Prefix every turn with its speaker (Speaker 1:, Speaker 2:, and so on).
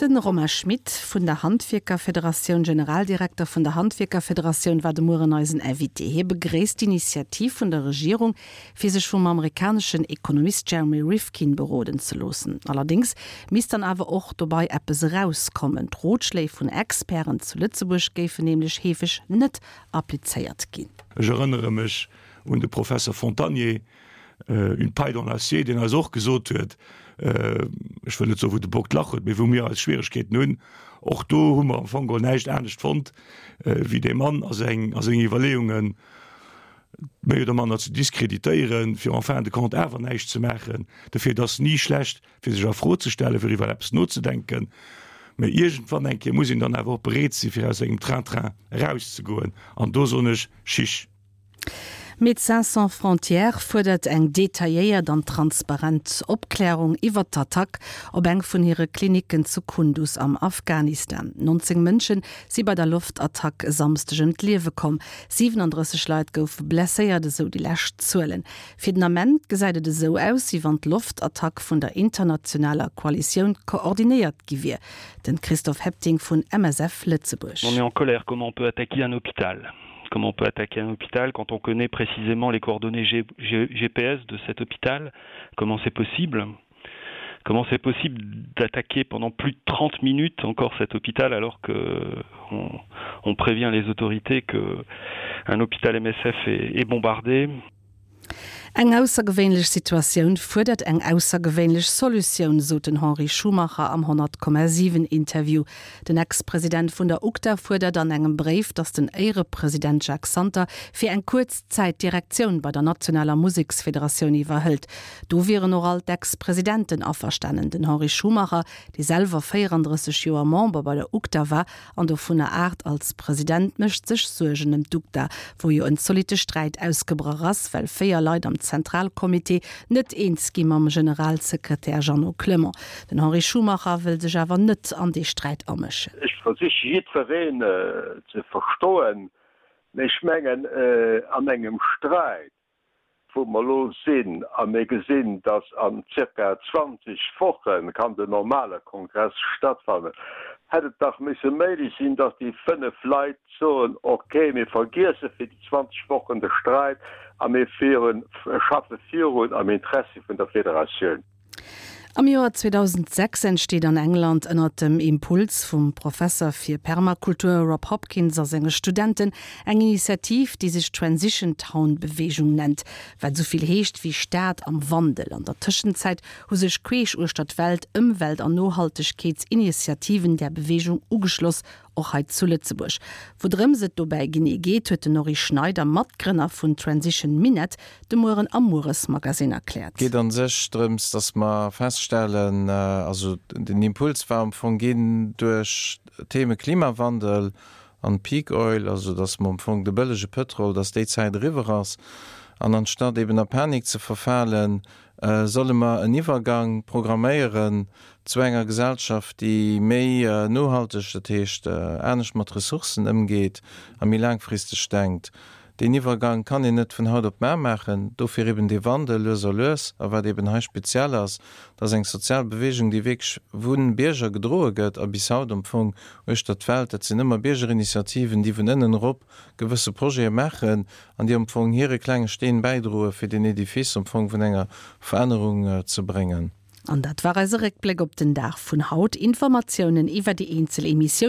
Speaker 1: De Romain Schmit vun der Handwierkerfederatioun, Generaldirekter vun der Handwierkerfederatioun, war de Mueren eisen Invité. Hie begréisst d'Initiativ vun der Regierung, fir sech vum amerikaneschen Ekonomist Jeremy Rifkin beroden ze loossen. Allerdéngs misst dann awer och dobei eppes erauskommen. D'Rotschléi vun Experten zu Lëtzebuerg géifen nämlech heefeg net applizéiert ginn.
Speaker 2: Ech erënnere mech un de Professer Fontagné, une paille dans l'acier, deen eis och gesot huet, ech wëll net soen, wou de Bock d'Lach huet, mee wou mir eis Schwieregkeeten hunn, och do hu mer am Fong geholl näischt anescht fonnt, wéi dee Mann a seng Iwwerleeungen méi oder manner ze diskreditéieren, fir en fin de compte awer näischt ze maachen. Dofir, et ass ni schlecht, fir sech a Fro ze stellen, fir iwwer eppes nozedenken, mä iergendwann eng Kéier muss een dann awer och bereet sinn, fir aus engem Train-train erauszegoen. An do soen ech, Chiche!
Speaker 1: Médecins sans frontières fuerdert eng detailléiert an transparent Opklärung iwwert d'Attack op eng vun hire Klinicken zu Kunduz am Afghanistan. 19 Mënsche si bei der Loftattack e Samsdeg ëm d'Liewe komm, 37 Leit goufe blesséiert, esou déi lescht Zuelen. Fir den Ament gesäit et esou aus, wéi wann d'Loftattack vun der internationaler Koalitioun koordinéiert gi wier. Den Christophe Hepting vun MSF Lëtzebuerg.
Speaker 3: On est en colère, comment on peut attaquer un hôpital? Comment on peut attaquer un hôpital quand on connaît précisément les coordonnées G G GPS de cet hôpital Comment c'est possible Comment c'est possible d'attaquer pendant plus de 30 minutes encore cet hôpital alors que on, on prévient les autorités que un hôpital MSF est, est bombardé
Speaker 1: Eng aussergewéinlech Situatioun fuerdert eng aussergewéinlech Solutioun, sot den Henri Schumacher am 100,7 Interview. Den Ex-President vun der UGDA fuerdert an engem Bréif, datt den Éierepresident Jacques Santer fir eng kuerz Zäit d'Direktioun bei der nationaler Museksfederatioun iwwerhëlt. Do wieren och all d'Ex-Presidenten averstanen. Den Henri Schumacher, dee selwer 34 Joer Member bei der UGDA war, An dovunner 8 als President, mécht sech Suergen ëm d'UGDA, wou jo en zolitte Sträit ausgebrach ass, well 4 Leit am Zentralcomité net eens gi mam Generalsekretär Jeannot Clement. Den Henri Schumacher wëll sech awer net an dee Sträit amëschen.
Speaker 4: Ech versiche jiddwereen ze verstoen, mee ech mengen an engem Sträit wou mer elo sinn, a mir gesinn, dass an zirka 20 Woche kann den normale Kongress stattfannen, hätt et dach misse méiglech sinn, dass déi 5 Leit soen, ok, mir vergiesse fir déi 20 Wochen de Sträit a mir schaffe virun am Interessi vun der Federatioun.
Speaker 1: Am Joer 2006 entsteet an England ënnert dem Impuls vum Professer fir Permakultur Rob Hopkins a senge Studenten eng Initiativ, déi sech Transition Town Beweegung nennt, wat esou vill heescht wéi Stad am Wandel. An der Tëschenzäit hu sech queesch uechter d'Welt Ëmwelt an Nohaltegkeetsinitiativen där Beweegung ugeschloss, Och hei zu Lëtzebuerg. Woudrëms et dobäi genee geet, huet den Norry Schneider, Matgrënner vun Transition Minett, de Mueren am Mueresmagasinn erkläert.
Speaker 5: Geet an sech drëms, dass mer feststellen, also den Impuls war am Fong ginn duerch d'Theme Klimawandel an Peak Oil, also dass mer am Fong de bëllege Pëtrol, dass déi Zäit eriwwer ass an anstatt eben a Panik ze verfalen, solle mer en Iwwergang programméieren zu enger Gesellschaft, déi méi nohalteg, dat heescht anescht mat Ressourcen ëmgeet a méi laangfristeg denkt. Deen Iwwergang kann een net vun haut op mar maachen, dofir eben dee Wandel lues a lues. A wat eben hei speziell ass, dat ass eng sozial Bewegung, déi wierklech vu Bierger gedroe gëtt a bis haut am Fong uechter d'Welt, dat sinn ëmmer Biergerinitiativen, déi vun ënnen erop gewësse Projete maachen an déi am Fong hire klenge Steen bäidroe fir deen Edifice am Fong vun enger Verännerung ze bréngen.
Speaker 1: An dat war eise Réckbléck op den Dag vun haut. Informatiounen iwwer déi eenzel Emissiounen.